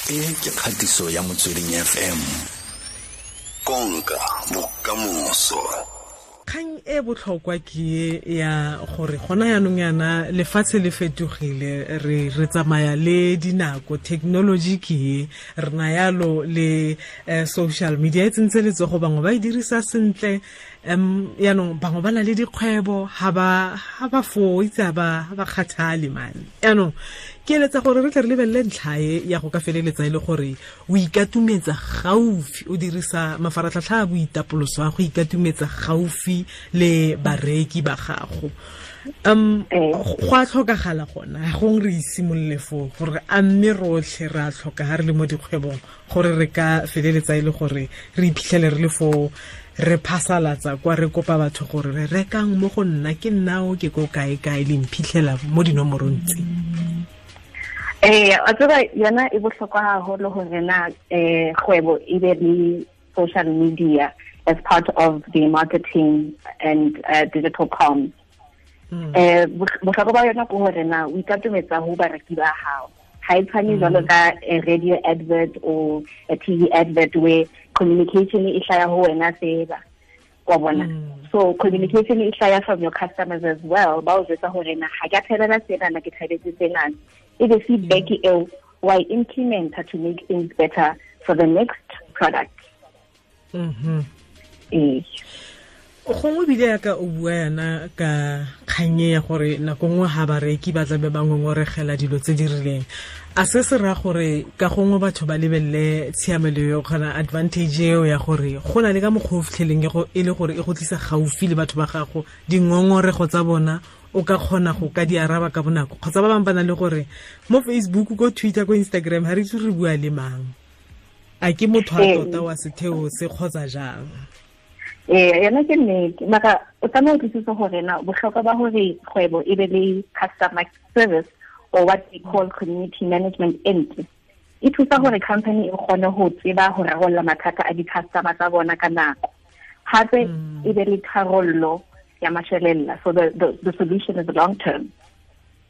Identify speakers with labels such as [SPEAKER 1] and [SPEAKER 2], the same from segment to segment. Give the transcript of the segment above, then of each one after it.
[SPEAKER 1] E ke kgatiso ya Motsweding FM. Konka bokamoso.
[SPEAKER 2] Kgang e botlhokwa ke ya gore gona yaanong yana lefatshe le fetogile, re tsamaya le dinako, technology ke e re na yalo le social media e tsentse letsogo, bangwe ba e dirisa sentle, yaanong bangwe ba na le dikgwebo ha ba foo itse ha ba kgathale mane. Yaanong ke eletsa gore re tle re lebelele ntlha e ya go ka feleletsa e le gore o ikatumetsa gaufi, o dirisa mafaratlhatlha a boitapoloso a go ikatumetsa gaufi le bareki ba gago. Go a tlhokagala gona gong re isimolole foo gore a mme rotlhe re a tlhoka ga re le mo dikgwebong gore re ka feleletsa e le gore re iphitlhele re le foo re phasalatsa kwa re kopa batho gore re rekang mo go nna, ke nnao ke ko kae kae le mphitlhela mo dinomorong tse.
[SPEAKER 3] A tseba yona e bohlokwa haholo hore na kgwebo e be le social media as part of the marketing and digital comms. Bohlokwa ba yona ke hore na o ikatometsa ho bareki ba hao. Ha e tshwane jwalo ka a radio advert or a TV advert where communication e hlaya ho wena fela, wa bona. So communication e hlaya from your customers as well. Ba o jwetsa hore na ha ke a thabela sena, na ke thabetse sena. E be feedback eo wa e implementa to make things better for the next product.
[SPEAKER 2] Gongwe bile yaka o bua yana ka kganye ya gore nako nngwe ha bareki ba tlabe ba ngongoregela dilo tse di rileng, a se se raya gore ka gongwe batho ba lebelele tshiamelo eo kgona advantage eo ya gore go na le ka mokgwa o fitlheleng e le gore e go tlisa gaufi le batho ba gago, dingongorego tsa bona o ka kgona go ka di araba ka bonako, kgotsa ba bangwe ba na le gore mo Facebook, ko Twitter, ko Instagram ha re itse re bua le mang, a ke motho a tota wa setheo se kgotsa jang.
[SPEAKER 3] Yona ke nnete, mara o tlameha o utlwisise hore na bohlokwa ba hore kgwebo e be le customer service or what we call community management entry e thusa hore company e kgone ho tseba ho rarolla mathata a di-customer tsa bona ka nako, hape e be le tharollo ya mashelella. So the solution is long term.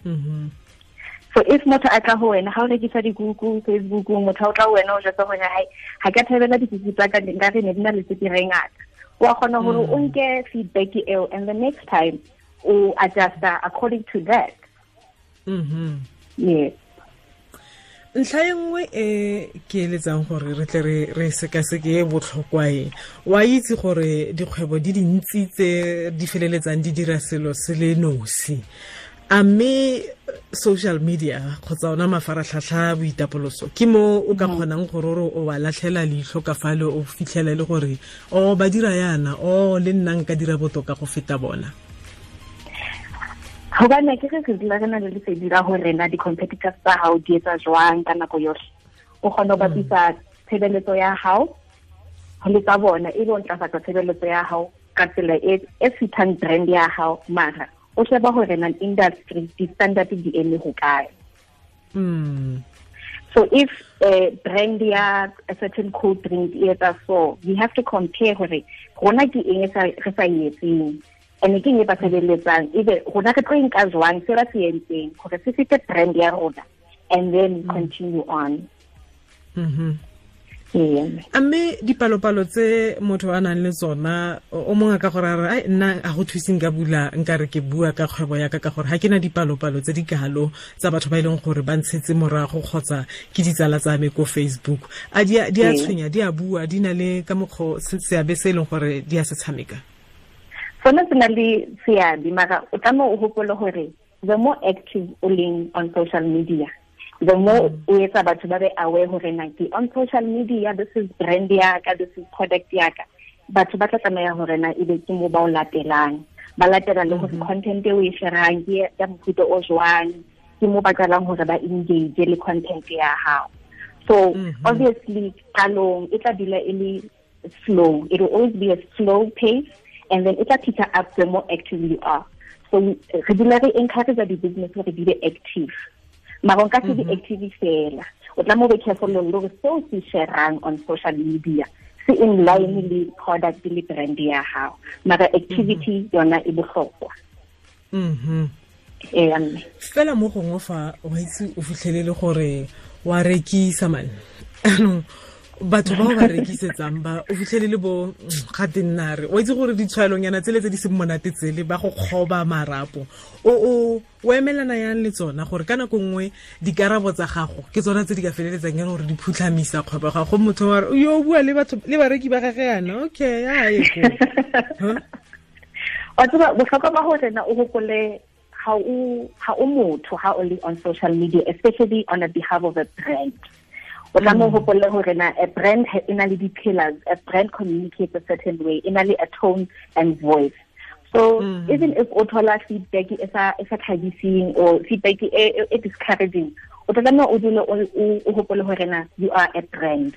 [SPEAKER 3] So if motho a tla ho wena, ha o rekisa dikuku Facebook, motho o tla ho wena o jwetsa hore hai ha ke a thabela dikuku tsa ka, nka re ne di na le tswekere e ngata, wa kgona hore o nke feedback eo and the next time o adjusta according to that. Yes.
[SPEAKER 2] Ntlha e nngwe e ke eletsang gore re tle re sekaseke e botlhokwa e, wa itse gore dikgwebo di dintsi tse di feleletsang di dira selo se le nosi, a mme social media kgotsa ona mafaratlhatlha boitapoloso ke mo o ka kgonang gore o wa latlhela leitlho ka fale o fitlhela le gore o ba dira yana, o le nna nka dira botoka go feta bona.
[SPEAKER 3] Hobane ke re dula re na le lesedi la hore na di-competitors tsa hao di etsa jwang ka nako yohle, o kgona ho bapisa tshebeletso ya hao le tsa bona, e be o ntlafatsa tshebeletso ya hao ka tsela e fitang brand ya hao, mara o sheba hore na industry di-standard di eme ho kae. So if brand ya a certain cold drink e etsa so, we have to compare hore rona ke eng re sa e etseng and ke eng e ba sebeletsang, ebe rona re tlo nka jwang se ba se entseng hore se fete brand ya rona and then continue on.
[SPEAKER 2] A mme dipalopalo tse motho a nang le tsona, o mongwe ka gore a re ai nna a go thuse nka bula nka re ke bua ka kgwebo ya ka ka gore ha ke na dipalopalo tse di kalo tsa batho ba e leng gore ba ntshetse morago kgotsa ke ditsala tsa me ko Facebook, a di a tshwenya, di a bua, di na le ka mokgwa seabe se e leng gore di a se tshameka?
[SPEAKER 3] Sona se na le seabe, mara o tlameha o hopole hore the more active o leng on social media, the more o etsa batho ba be aware hore na ke on social media, this is brand ya ka, this is product ya ka, batho ba tla tlameha hore na ebe ke mo ba o latelang, ba latela le hore content e o e sharang ke ya mofuta o jwang, ke mo ba qalang hore ba engage le content ya hao. So obviously qalong e tla dula e le slow, it will always be a slow pace, and then it tla pick up the more active you are. So re dula re encourage di-business hore di be active, mara o nka se di active fela, o tlameha o be careful le hore seo se sharang on social media se in line le product le brand ya hao, mara activity yona e bohlokwa.
[SPEAKER 2] Fela mo gongwe fa o itse o fitlhelele gore wa rekisa man. Anong batho bao ba rekisetsang ba o fitlhele le bo ga tennare o itse gore ditshwaelonyana tsele tse di seng monate tsele ba go kgoba marapo o emelana yang le tsona gore ka nako nngwe dikarabo tsa gago ke tsona tse di ka feleletsang e le gore di phutlhamisa kgwebo ga go motho wa re yo bua le batho le bareki ba gage yana okay a ye ko
[SPEAKER 3] wa tseba bohlokwa ba gore na o gopole ha o motho ha o le on social media, especially on the behalf of a brand. O tla mo hopole hore na a brand e na le di-pillars, a brand communicates a certain way, e na le a tone and voice. So even if o thola feedback e sa thabiseng or feedback e discouraging, o tla tlameha o dule o hopole hore na you are a brand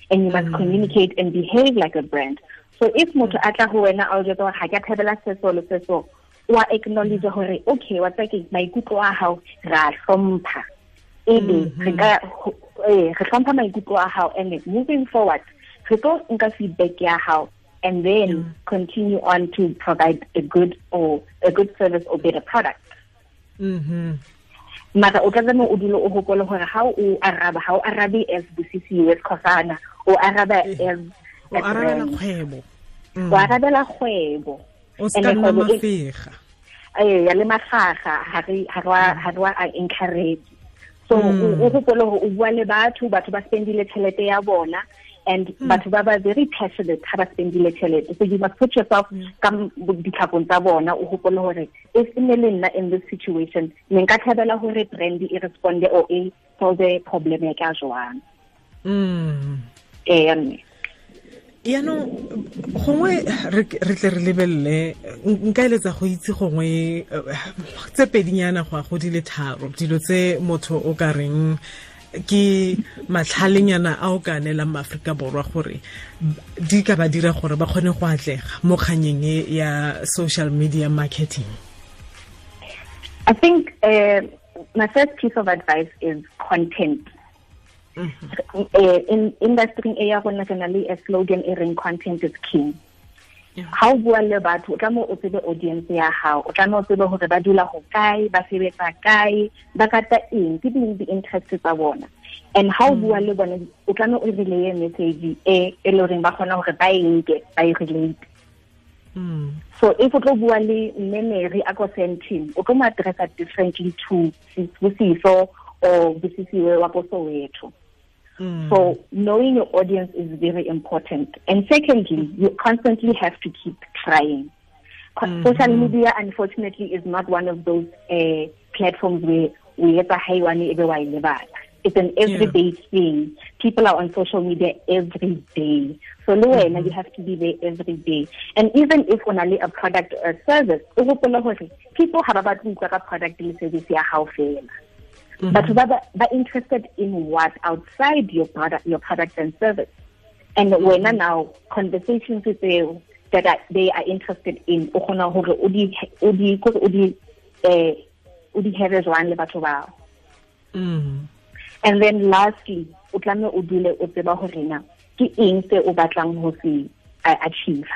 [SPEAKER 3] and you must communicate and behave like a brand. So if motho a tla ho wena a o jwetsa hore ha ke a thabela se so le se so, wa acknowledge hore okay, wa tseba ke maikutlo a hao ra hlompha. Ebe re ka re hlompha maikutlo a hao, and moving forward re tlo nka feedback ya hao and then continue on to provide a good service or better product. Mara o tla tlameha o dule o hopole hore ha o araba, ha o arabe as Busisiwe Skhosana, o araba as
[SPEAKER 2] o arabela kgwebo.
[SPEAKER 3] O arabela kgwebo.
[SPEAKER 2] O ska nna mafega.
[SPEAKER 3] Ya le mafaga ha re wa encourage. So o hopole hore o bua le batho ba spendile tjhelete ya bona, and batho ba ba very passionate ha ba spendile tjhelete. So you must put yourself ka ditlhakong tsa bona, o hopole hore if ne le nna in this situation ne nka thabela hore brand e responde or e solve problem ya ka jwang.
[SPEAKER 2] Yaanong gongwe re tle re lebelele nka eletsa go itse gongwe tse pedinyana go ya go di le tharo dilo tse motho o ka reng ke matlhalenyana a o ka neelang maAforika Borwa gore di ka ba dira gore ba kgone go atlega mo kganyeng e ya social media marketing.
[SPEAKER 3] I think my first piece of advice is content. In industry e ya rona re na le a slogan e reng content is king. Ha o bua le batho o tlameha o tsebe audience ya hao, o tlameha o tsebe hore ba dula ho kae, ba sebetsa kae, ba rata eng, ke ding di-interest tsa bona. And ha o bua le bona o tlameha o relay message e le horeng ba kgona hore ba e nke, ba e relate. So if o tlo bua le mme Mary a ko Sandton, o tlo mo addressa differently to Sibusiso or Busisiwe wa ko Soweto. So knowing your audience is very important. And secondly, you constantly have to keep trying. Social media, unfortunately, is not one of those platforms where we get a high one. It's an everyday thing. People are on social media every day. So you have to be there every day. And even if only a product or a service, people have about a product and service ya hao fela. But ba interested in what outside your product and service. And when now conversations with them that they are interested in, o kgona hore o di have jwang le batho bao. And then lastly, o tlameha o dule o tseba hore na ke eng se o batlang ho se achieve.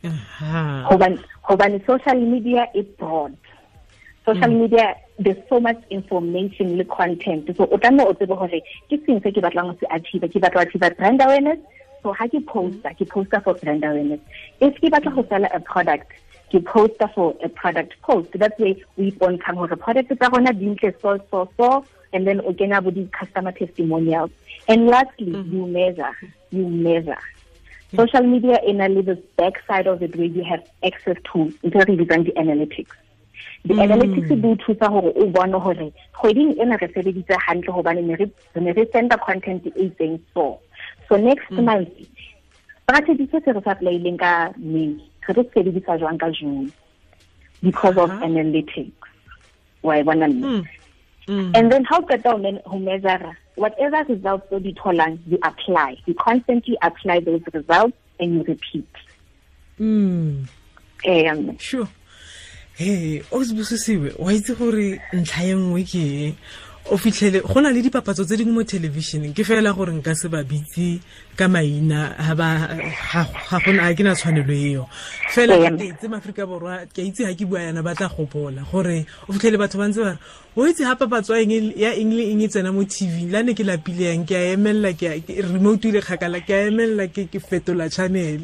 [SPEAKER 3] Hobane social media is broad. Social media, there's so much information le content. So o tlameha o tsebe hore ke seng se ke batlang ho se achieve. Ke batla ho achieve brand awareness. So ha ke posta for brand awareness. If ke batla ho sell a product, ke posta for a product post. That's way we ipontshang hore product tsa rona di ntle so so so, and then o kena bo di customer testimonials. And lastly, you measure. Social media in a little backside of it where you have access to ntho re bitsang di analytics. The analytics di thusa hore o bone hore kgweding ena re sebeditse hantle hobane ne re senda content e itseng so. So next month, strategy se re sa applyileng ka May, re tlo sebedisa jwang ka June because of analytics. Wa e bona mme? And then how qeta ho measure whatever results o di tholang, you apply. You constantly apply those results and you repeat.
[SPEAKER 2] Sure. Hey, o Busisiwe, wa itse gore ntlha e nngwe ke O fitlhele go na le dipapatso tse dingwe mo televisioneng, ke fela gore nka se ba bitse ka maina, ga gona ke na tshwanelo eo. Fela ke itse Maaforika Borwa, ke itse ha ke bua yana ba tla gopola gore o fitlhele batho ba ntse ba re o itse ha papatso ya eng le eng e tsena mo TV, la ne ke lapile yang ke a emella, ke remote ile kgakala, ke a emella, ke fetola channel.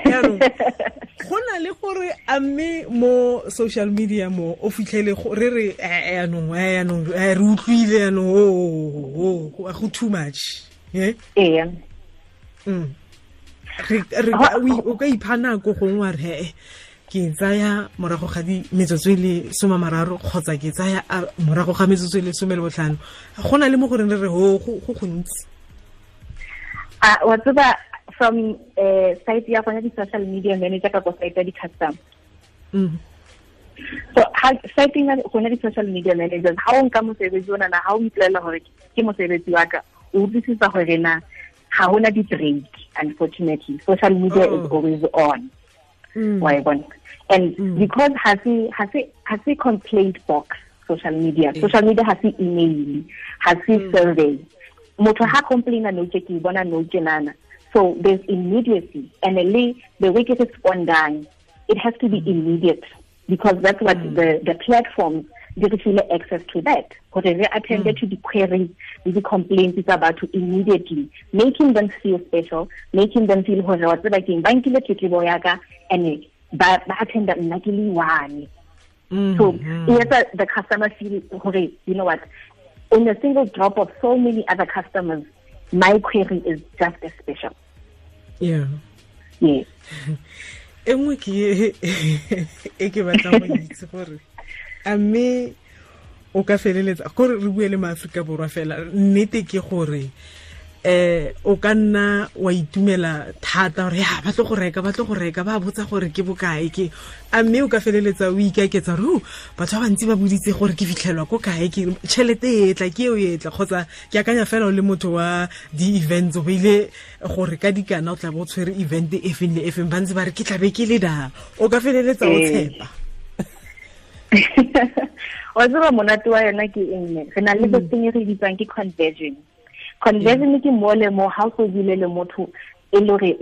[SPEAKER 2] Jaanong go na le gore a mme mo social media mo o fitlhele re re yaanong re utlwile yaanong go too much. Ee. O ka ipha nako gongwe wa re ke tsaya morago ga di metsotso e le 30 kgotsa ke tsaya morago ga metsotso e le 15. Go na le mo goreng re re go gontsi.
[SPEAKER 3] Wa tseba from site ya gona di social media manager ka ko site ya di-customer. So site ya gona di social media managers, ha o nka mosebetsi ona na ha o ipolela gore ke mosebetsi wa ka, o utlwisisa gore na ha hona di-break. Unfortunately, social media is always on. Wa e bona? And because ha se complaint box social media. Social media ha se email, ha se survey. Motho ha complaina no ke bona no tjenana. So there's immediacy, and the way it responding, it has to be immediate, because that's what the platforms give you access to that. Because they attended to the queries, the complaints about to immediately, making them feel special, making them feel and attend one. So the customer feel, you know what, in a single drop of so many other customers, my query is just as special.
[SPEAKER 2] Yeah.
[SPEAKER 3] Yes.
[SPEAKER 2] E nngwe ke e ke batlang go itse gore a mme o ka feleletsa gore re bue le maAforika Borwa fela, nnete ke gore o ka nna wa itumela thata gore ya ba tlo go reka, ba botsa gore ke bokae ke, a mme o ka feleletsa o ikaketsa gore batho ba bantsi ba boditse gore ke fitlhelwa ko kae, ke tšhelete e tla ke eo e tla, kgotsa ke akanya fela o le motho wa di-events o beile gore ka dikana o tla bo o tshwere event e feng le e feng, ba ntse ba re ke tlabe ke le da, o ka feleletsa o tshepa.
[SPEAKER 3] Wa tseba monate wa yona ke eng? Re na le se sengwe re bitsang ke conversion. Conversion ke mo le mo ha o bile le motho e le hore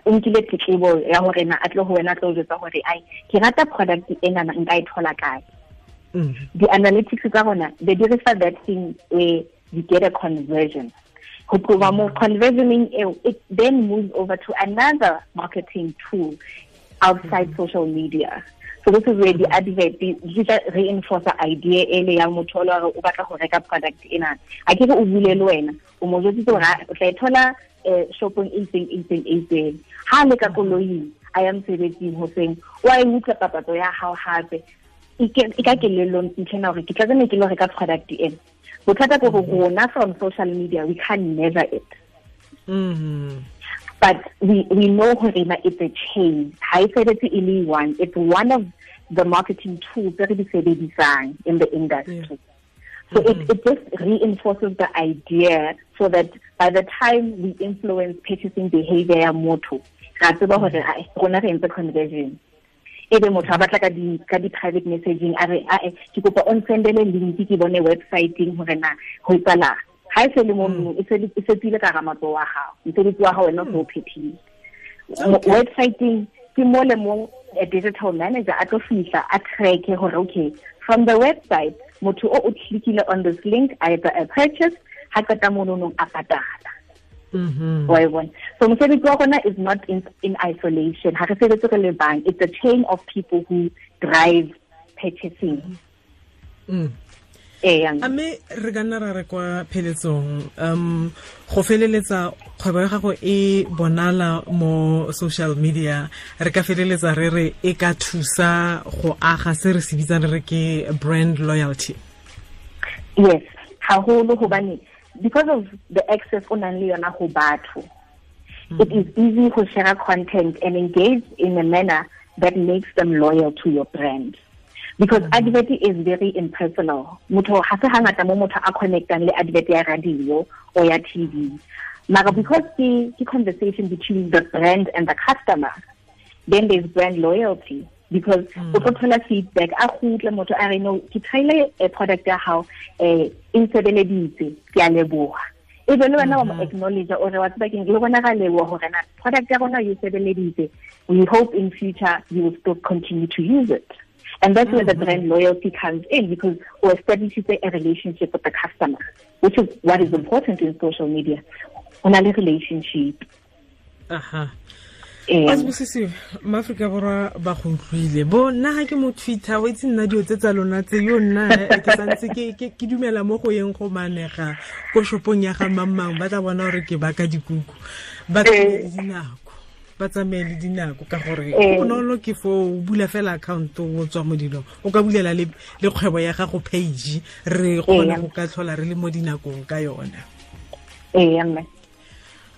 [SPEAKER 3] o nkile tletlebo ya hore na a tle ho wena tlo jwetsa hore ai ke rata product ena na nka e thola kae. The analytics tsa rona they refer that thing where you get a conversion. Ho tloha mo conversioning eo, it then moves over to another marketing tool outside social media. So this is where the advert di reinforce the idea ele ya motho o o batla go reka product ena. A ke re o bule le wena, o mo jwetsitse hore o tla e thola shopong e itseng. Ha le ka koloing a ya mosebetsing hoseng, o a e utlwa papatso ya hao hape. E ka kelellong ntlhena hore ke tla tsena ke lo reka product ena. Bothata ke hore rona from social media we can measure it. But we know hore it's a chain. Ha e sebetse e le one. It's one of the marketing tools that we sebedisang in the industry.
[SPEAKER 2] Yeah.
[SPEAKER 3] So it just reinforces the idea so that by the time we influence purchasing behavior ya motho, ra tseba hore rona re entse conversion. Ebe motho a batla ka di private messaging a re a ke kopa o nsendele link ke bone website-eng hore na ho etsahala. Ha e se le mo e se tsile ka ramatso wa hao, mosebetsi wa hao wena o phethile. Website-eng ke mo le mo a digital manager a tlo fihla a track hore okay from the website motho o clickile on this link a etsa a purchase, ha qeta mono a patala. Wa e bona? So mosebetsi wa rona is not in isolation. Ha re sebetse re le bang, it's a chain of people who drive purchasing.
[SPEAKER 2] A mme re ka nna ra re kwa pheletsong, go feleletsa kgwebo ya gago e bonala mo social media, re ka feleletsa re re e ka thusa go aga se re se bitsang re ke brand loyalty?
[SPEAKER 3] Yes, haholo, hobane because of the access o nang le yona ho batho, it is easy to share content and engage in a manner that makes them loyal to your brand. Because advert is very impersonal. Motho ha se hangata mo motho a connectang le advert ya radio or ya TV. Mara because the conversation between the brand and the customer, then there's brand loyalty. Because o tlo thola feedback a kgutle motho a re no ke try-ile a product ya hao e nsebeleditse, ke a leboha. E be le wena wa mo acknowledge o re wa tseba keng, le rona ra leboha hore na product ya rona e sebeleditse. We hope in future you will still continue to use it. And that's where the brand loyalty comes in, because we establish a relationship with the customer, which is what is important in social media. O na le relationship.
[SPEAKER 2] Aha. Asibusisiwe, maAfrika Borwa ba go utlwile. Bo nna ga ke mo Twitter, o itse nna dilo tse tsa lona tse yo nna ke santse ke dumela mo go yeng go manega ko shopong ya ga mang ba tla bona gore ke baka dikuku. Ba tsamaye dinako. Ba tsamaye le dinako ka gore bonolo ke fo o bula fela account o tswa mo dilong. O ka bulela le kgwebo ya gago page re kgona go ka tlhola re le mo dinakong ka yona.
[SPEAKER 3] Mme.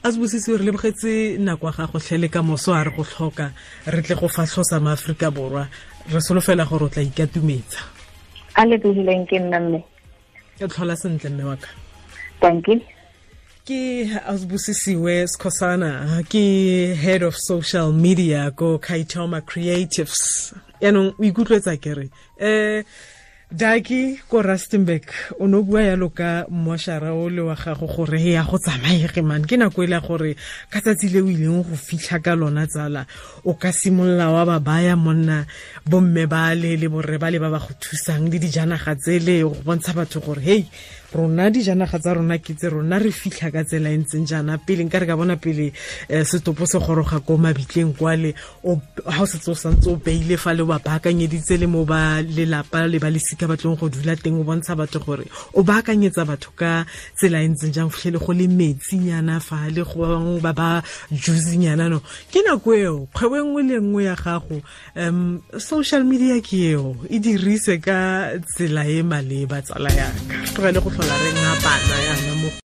[SPEAKER 2] Asibusisiwe, re lebogetse nako ya gago tlhe le ka moso a re go tlhoka re tle go fatlhosa maAfrika Borwa. Re solofela gore o tla ikatumetsa.
[SPEAKER 3] A lebohileng ke nna mme.
[SPEAKER 2] Ke tlhola sentle mme wa ka.
[SPEAKER 3] Thank you.
[SPEAKER 2] Ke Asibusisiwe Skhosana, ke head of social media ko Kaitoma Creatives. Yaanong o ikutlwetsa ke re Daki ko Rustenburg o no bua yalo ka moshara o le wa gago gore ya go tsamaege man ke nako ile gore ka tsatsi le o ileng go fitlha ka lona tsala o ka simolla wa ba baya monna bomme ba le le borre ba le ba ba go thusang le dijanaga tsele go bontsha batho gore hey rona dijanaga tsa rona ke tse rona re fitlha ka tsela e ntseng jaana pele nka re ka bona pele setopo se goroga ko mabitleng kwale o ha o setse o santse o beile fa le ba baakanyeditse le mo ba lelapa le ba lesika ba tlong go dula teng o bontsha batho gore o baakanyetsa batho ka tsela e ntseng jang fitlhele go le metsinyana fa le go ba bangwe ba ba juice-nyana no ke nako eo kgwebo e nngwe le nngwe ya gago social media ke eo e dirise ka tsela e maleba tsala yaka tlogele go tlhola re ngapana yana.